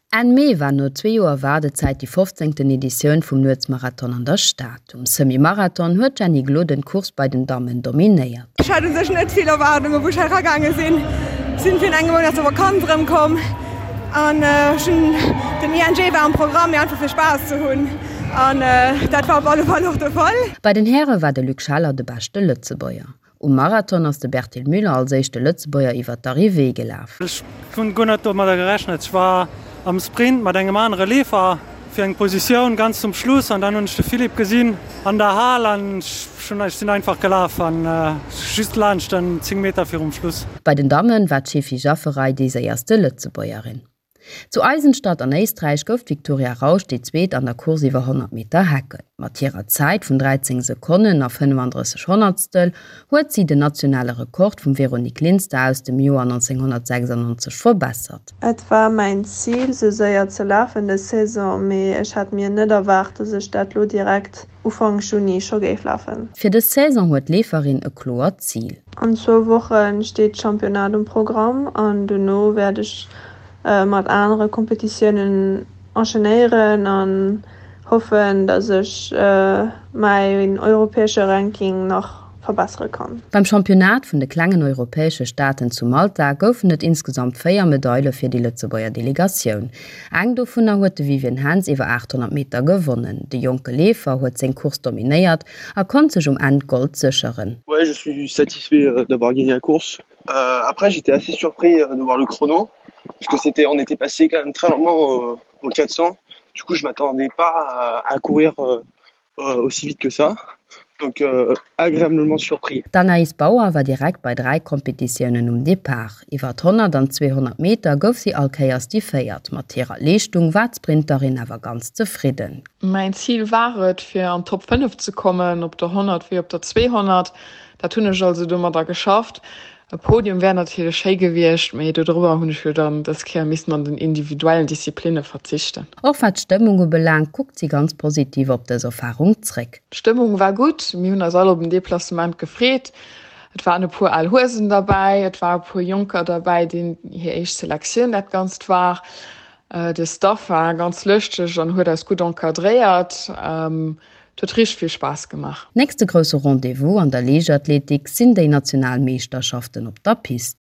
Enn Mee war no zwee Joer Waardezäit déi fofzéngten Editioun vum Nuetsmarathon an der Stad. Um Semi-Marathon huet d'Jenny Gloden d'Course bei den Dammen dominéiert. Ech hat u sech net vill Erwaardungen, wou ech hei eragaange sinn. Sinn virun engem Mount aus der Vakanz erëmkomm an ech hunn, den ING war am Programm, mee einfach fir Spaass ze hunn an dat war op alle Fall och de Fall. Bei den Häre war de Luc Scheller de beschte Lëtzebuerger. Um Marathon ass de Bertil Müller als éischte Lëtzebuerger iwwer d'Arrivée gelaf. Ech hunn guer net domadder gerechnet. Ech war am Sprint mat engem anere Leefer fir eng Positioun ganz zum Schluss an dann hunn ech de Philippe gesinn an der Hal an ech sinn einfach gelaf an just laanscht en 10 Meter virum Schluss. Bei den Dammen war d'Shefi Jafferaj déi séierste Lëtzebuergerin. Zu Eisenstadt an Éisträich gouf d'Viktoria Rausch déi Zweet an der Course iwwer 100 Meter Hecken. Mat hirer Zäit vun 13 Sekonnen a 35 Honnertstel huet si den nationale Rekord vum Véronique Linster aus dem Joer 1996 verbessert. Et war mäin Zil sou séier ze lafen des Saison, mee ech hat mir net erwaart, dass ech dat lo direkt Ufank Juni scho géif lafen. Fir dës Saison huet d'Leeferin e kloert Zil. An zwou Woche steet d'Championnat um Programm an dono wäert ech mat anere Kompetitiounen enchainéieren an hoffen, dass ech mäin europäesche Ranking nach verbessere kann. Beim Championnat vun de klengen europäesche Staaten zu Malta goufen et insgesamt 4 Medaile fir déi Lëtzebuerger Delegatioun. Eng dovunner huet de Vivien Henz iwwer 800 Meter gewonnen. De jonke Leefer huet seng Course dominéiert a konnt sech um Enn d'Gold sécheren. Ouais, je suis satisfait d'avoir gagné la course. Après, j'étais assez surpris de voir le chrono parce que c'était on était passé quand même très lentement au 400. Du coup, je m'attendais pas à courir aussi vite que ça. Donc agréablement surpris. D'Anaïs Bauer war direkt bei 3 Kompetitiounen um Depart. Iwwer 100 an 200 Meter gouf si all Kéiers déi Véiert. Mat hirer Leeschtung war d'Sprinterin awer ganz zefridden. Mäin Zil war et, fir an d'Top 5 ze kommen, op der 100 wéi op der 200. Dat hunn ech also domadder geschafft. E Podium wär natierlech schéi gewiescht, mee dodrobber hunn ech jo dann dës Kéier missten an den individuellen Disziplinne verzichten. Och wat d'Stëmmung ubelaangt, kuckt si ganz positiv op dës Erfarung zréck. D'Stëmmung war gutt, mir hunn eis all op den Deplacement gefreet. Et waren e puer al Huesen derbäi, et war e puer Jonker derbäi, deenen hir éischt Selektioun dat Ganzt war. De Staff war ganz lëschteg an huet eis gutt encadréiert. Et huet richteg vill Spaass gemaach. Nächste grousse Rendez-vous an der Liichtathletik sinn déi national Meeschterschaften op der Pist.